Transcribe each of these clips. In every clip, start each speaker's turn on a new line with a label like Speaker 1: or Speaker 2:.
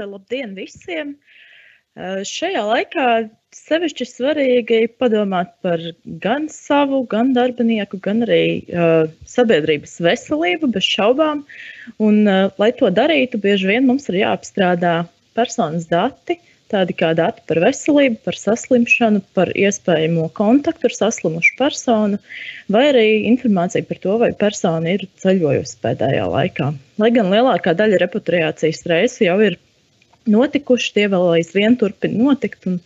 Speaker 1: Labdien visiem! Šajā laikā sevišķi svarīgi padomāt par gan savu, gan darbinieku, gan arī sabiedrības veselību bez šaubām. Un, lai to darītu, bieži vien mums ir jāapstrādā personas dati, tādi kā dati par veselību, par saslimšanu, par iespējamo kontaktu ar saslimušu personu, vai arī informācija par to, vai persona ir ceļojusi pēdējā laikā. Lai gan lielākā daļa repatriācijas reisu jau ir notikuši, tie vēl aizvien turpina notikt, un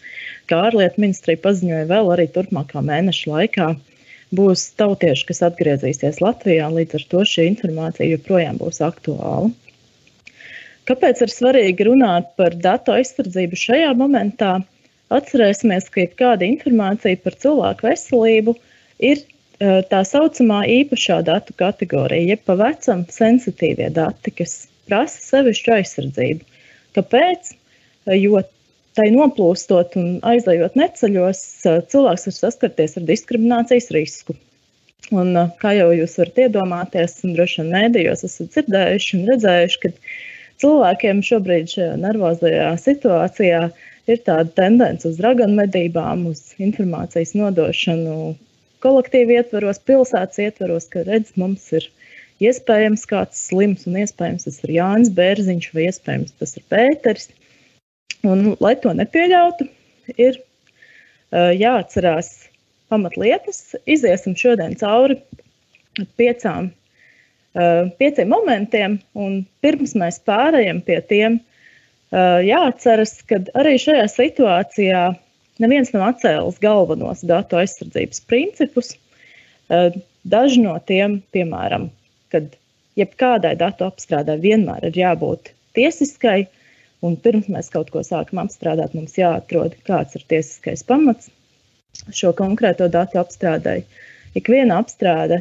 Speaker 1: kā ārlietu ministrija paziņoja, vēl arī turpmākā mēneša laikā būs tautieši, kas atgriezīsies Latvijā, līdz ar to šī informācija joprojām būs aktuāla. Kāpēc ir svarīgi runāt par datu aizsardzību šajā momentā? Atcerēsimies, ka jebkāda informācija par cilvēku veselību ir tā saucamā īpašā datu kategorija, jeb pa vecam sensitīvie dati, kas prasa sevišķu aizsardzību. Kāpēc? Jo tai noplūstot un aizejot neceļos, cilvēks var saskarties ar diskriminācijas risku. Un, kā jau jūs varat iedomāties, un droši vien mēdījos esat dzirdējuši un redzējuši, ka cilvēkiem šobrīd šajā nervozajā situācijā ir tāda tendence uz raganmedībām, uz informācijas nodošanu kolektīvu ietvaros, pilsētas ietvaros, ka redz, mums ir iespējams kāds slims, un iespējams tas ir Jānis Bērziņš, vai iespējams tas ir Pēteris. Un, lai to nepieļautu, ir jāatcerās pamatlietas. Iziesim šodien cauri pieciem momentiem, un pirms mēs pārējam pie tiem, jāatceras, ka arī šajā situācijā neviens nav atcēlis galvenos datu aizsardzības principus. Daži no tiem, piemēram, kad jebkādai datu apstrādai vienmēr ir jābūt tiesiskai, un pirms mēs kaut ko sākam apstrādāt, mums jāatrod, kāds ir tiesiskais pamats šo konkrēto datu apstrādai. Ikviena apstrāde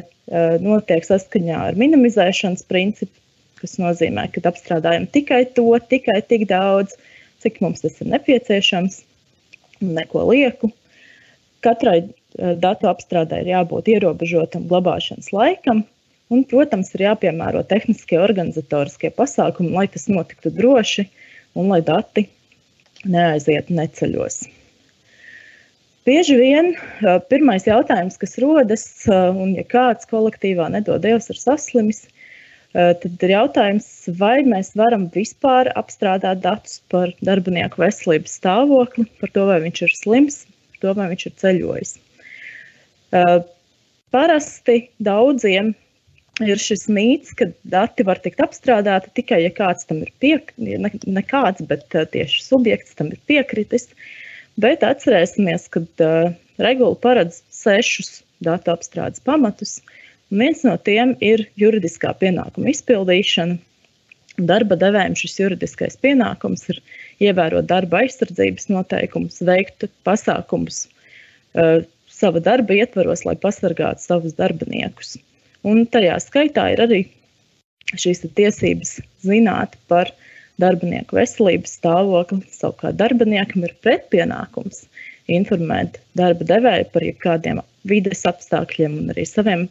Speaker 1: notiek saskaņā ar minimizēšanas principu, kas nozīmē, ka apstrādājam tikai to, tikai tik daudz, cik mums tas ir nepieciešams, neko lieku. Katrai datu apstrādai ir jābūt ierobežotam glabāšanas laikam, un, protams, ir jāpiemēro tehniskie organizatoriskie pasākumi, lai tas notiktu droši un lai dati neaizietu neceļos. Bieži vien pirmais jautājums, kas rodas, un ja kāds kolektīvā nedod Dievs ir saslimis, tad ir jautājums, vai mēs varam vispār apstrādāt datus par darbinieku veselības stāvokli, par to, vai viņš ir slims, par to, vai viņš ir ceļojis. Parasti daudziem ir šis mīts, ka dati var tikt apstrādāti tikai, ja kāds tam ir ne kāds, bet tieši subjekts tam ir piekritis. Bet atcerēsimies, ka regula paredz 6 datu apstrādes pamatus, un viens no tiem ir juridiskā pienākuma izpildīšana. Darba devējiem šis juridiskais pienākums ir ievērot darba aizsardzības noteikumus, veikt pasākumus sava darba ietvaros, lai pasargātu savus darbiniekus. Un tajā skaitā ir arī šīs tiesības zināt par darbinieku veselības stāvokli. Savukārt darbiniekam ir pretpienākums informēt darba devēju par jebkādiem vides apstākļiem un arī saviem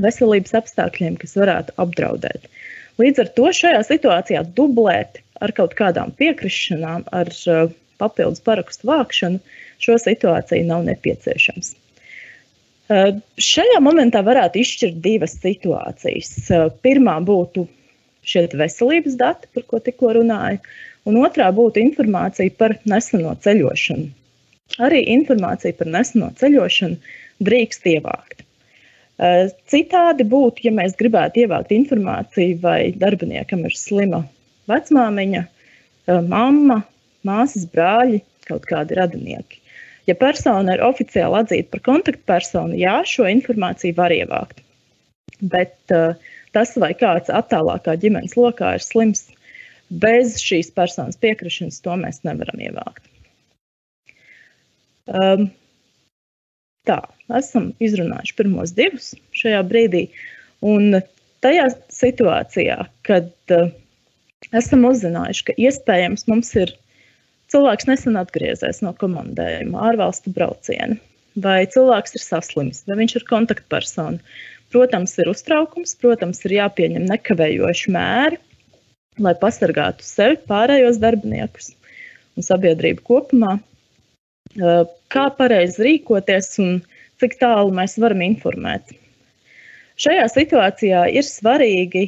Speaker 1: veselības apstākļiem, kas varētu apdraudēt. Līdz ar to šajā situācijā dublēt ar kaut kādām piekrišanām, ar papildus parakstu vākšanu, šo situāciju nav nepieciešams. Šajā momentā varētu izšķirt 2 situācijas. Pirmā būtu šie veselības dati, par ko tikko runāju, un otrā būtu informācija par neseno ceļošanu. Arī informācija par neseno ceļošanu drīkst ievākt. Citādi būtu, ja mēs gribētu ievākt informāciju, vai darbiniekam ir slima vecmāmiņa, mamma, māsas, brāļi, kaut kādi radinieki. Ja persona ir oficiāli atzīta par kontaktpersonu, jā, šo informāciju var ievākt. Bet tas, vai kāds attālākā ģimenes lokā ir slims, bez šīs personas piekrišanas, to mēs nevaram ievākt. Tā, esam izrunājuši pirmos 2 šajā brīdī, un tajā situācijā, kad esam uzzinājuši, ka iespējams mums ir cilvēks nesen atgriezies no komandējuma, ārvalstu brauciena, vai cilvēks ir saslims, vai viņš ir kontaktpersona. Protams, ir uztraukums, protams, ir jāpieņem nekavējoši mēri, lai pasargātu sevi, pārējos darbiniekus un sabiedrību kopumā, kā pareizi rīkoties un cik tālu mēs varam informēt. Šajā situācijā ir svarīgi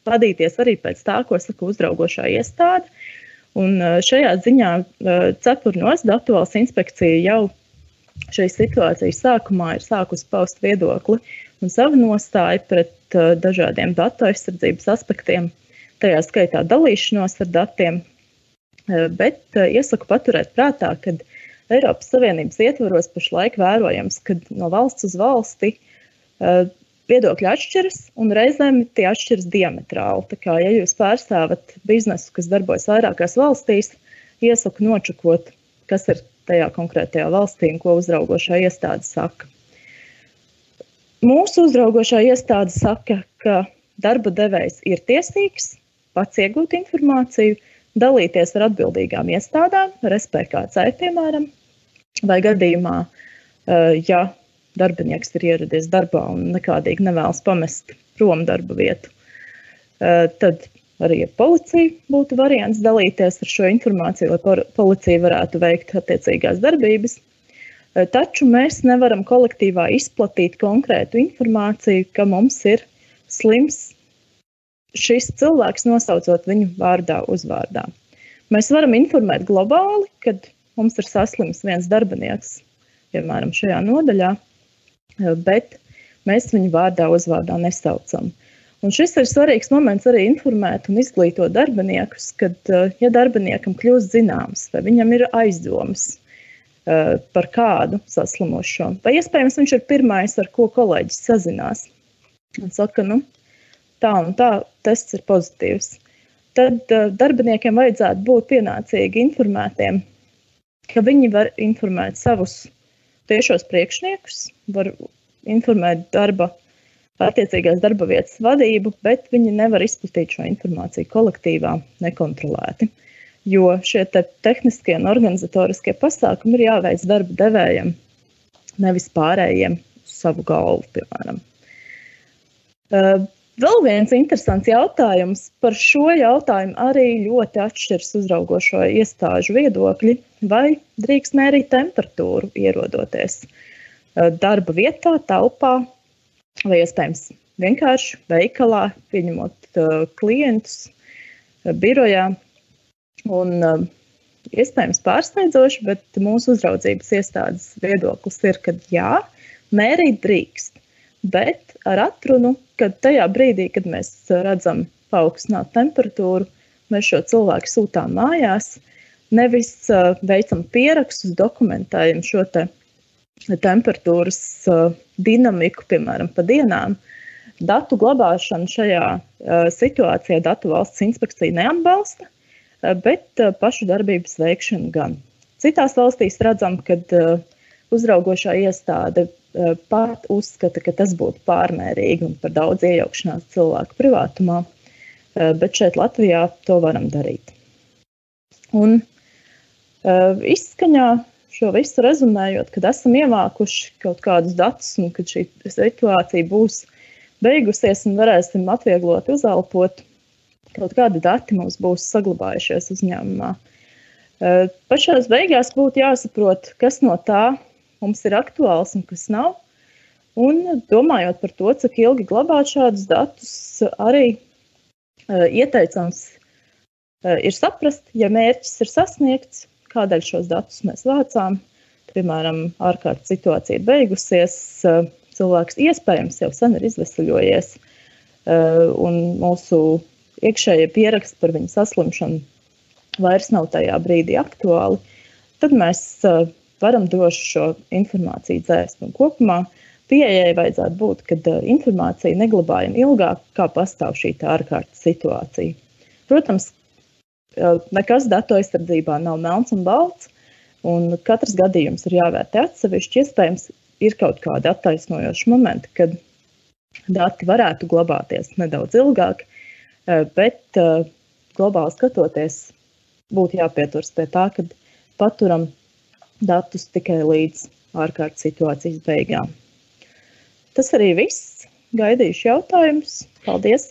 Speaker 1: vadīties arī pēc tā, ko saka uzraugošā iestāde. Un šajā ziņā cepurnos Datu valsts inspekcija jau šīs situācijas sākumā ir sākusi paust viedokli un savu nostāju pret dažādiem datu aizsardzības aspektiem, tajā skaitā dalīšanos ar datiem, bet iesaku paturēt prātā, ka Eiropas Savienības ietvaros pašlaik vērojams, ka no valsts uz valsti viedokļi atšķiras un reizēm tie atšķiras diametrāli. Tā kā, ja jūs pārstāvat biznesu, kas darbojas vairākās valstīs, iesaku nočakot, kas ir tajā konkrētajā valstī un ko uzraugošā iestāde saka. Mūsu uzraugošā iestāde saka, ka darba devējs ir tiesīgs pats iegūt informāciju, dalīties ar atbildīgām iestādām, ar SPKC, piemēram, vai gadījumā, ja darbinieks ir ieradies darbā un nekādīgi nevēlas pamest prom darba vietu, tad arī ar policiju būtu variants dalīties ar šo informāciju, lai policija varētu veikt attiecīgās darbības. Taču mēs nevaram kolektīvā izplatīt konkrētu informāciju, ka mums ir slims šis cilvēks, nosaucot viņu vārdā, uzvārdā. Mēs varam informēt globāli, kad mums ir saslims viens darbinieks, piemēram, šajā nodaļā, bet mēs viņu vārdā, uzvārdā nesaucam. Un šis ir svarīgs moments arī informēt un izglītot darbiniekus, kad, ja darbiniekam kļūst zināms, vai viņam ir aizdomas par kādu saslimušo, vai iespējams viņš ir pirmais, ar ko kolēģis sazinās, un saka, tā un tā, tests ir pozitīvs. Tad darbiniekiem vajadzētu būt pienācīgi informētiem, ka viņi var informēt savus tiešos priekšniekus, var informēt attiecīgās darba vietas vadību, bet viņi nevar izplatīt šo informāciju kolektīvā nekontrolēti. Jo šie tehniskie un organizatoriskie pasākumi ir jāveic darba devējiem, nevis pārējiem uz savu galvu, piemēram. Vēl viens interesants jautājums. Par šo jautājumu arī ļoti atšķiras uzraugošo iestāžu viedokļi, vai drīkst mērīt temperatūru ierodoties darba vietā, telpā, vai iespējams vienkārši veikalā, pieņemot klientus birojā. Un iespējams pārsteidzoši, bet mūsu uzraudzības iestādes viedoklis ir, ka jā, mērīt drīkst, bet ar atrunu, kad tajā brīdī, kad mēs redzam paaugstinātu temperatūru, mēs šo cilvēku sūtām mājās, nevis veicam pierakstus, dokumentējam šo temperatūras dinamiku, piemēram, pa dienām. Datu glabāšanu šajā situācijā Datu valsts inspekcija neatbalsta, bet pašu darbības veikšanu gan. Citās valstīs redzam, kad uzraugošā iestāde pat uzskata, ka tas būtu pārmērīgi un par daudz iejaukšanās cilvēku privātumā, bet šeit Latvijā to varam darīt. Un izskaņā šo visu rezumējot, kad esam ievākuši kaut kādus datus un kad šī situācija būs beigusies un varēsim atvieglot uzelpot, kaut kādi dati mums būs saglabājušies uzņēmumā. Pašās beigās būtu jāsaprot, kas no tā mums ir aktuāls un kas nav. Un domājot par to, cik ilgi glabāt šādus datus, arī ieteicams ir saprast, ja mērķis ir sasniegts, kādēļ šos datus mēs vācām. Piemēram, ārkārtas situācija ir beigusies, cilvēks iespējams jau sen ir izveseļojies, un mūsu iekšējie pieraksti par viņu saslimšanu vairs nav tajā brīdī aktuāli, tad mēs varam droši šo informāciju dzēst. Un kopumā pieejai vajadzētu būt, kad informācija neglabājam ilgāk, kā pastāv šī ārkārtas situācija. Protams, nekas datu aizsardzībā nav melns un balts, un katrs gadījums ir jāvērtē atsevišķi. Iespējams, ir kaut kādi attaisnojoši momenti, kad dati varētu glabāties nedaudz ilgāk, bet globāli skatoties, būtu jāpieturas pie tā, ka paturam datus tikai līdz ārkārtas situācijas beigām. Tas arī viss. Gaidīšu jautājumus. Paldies!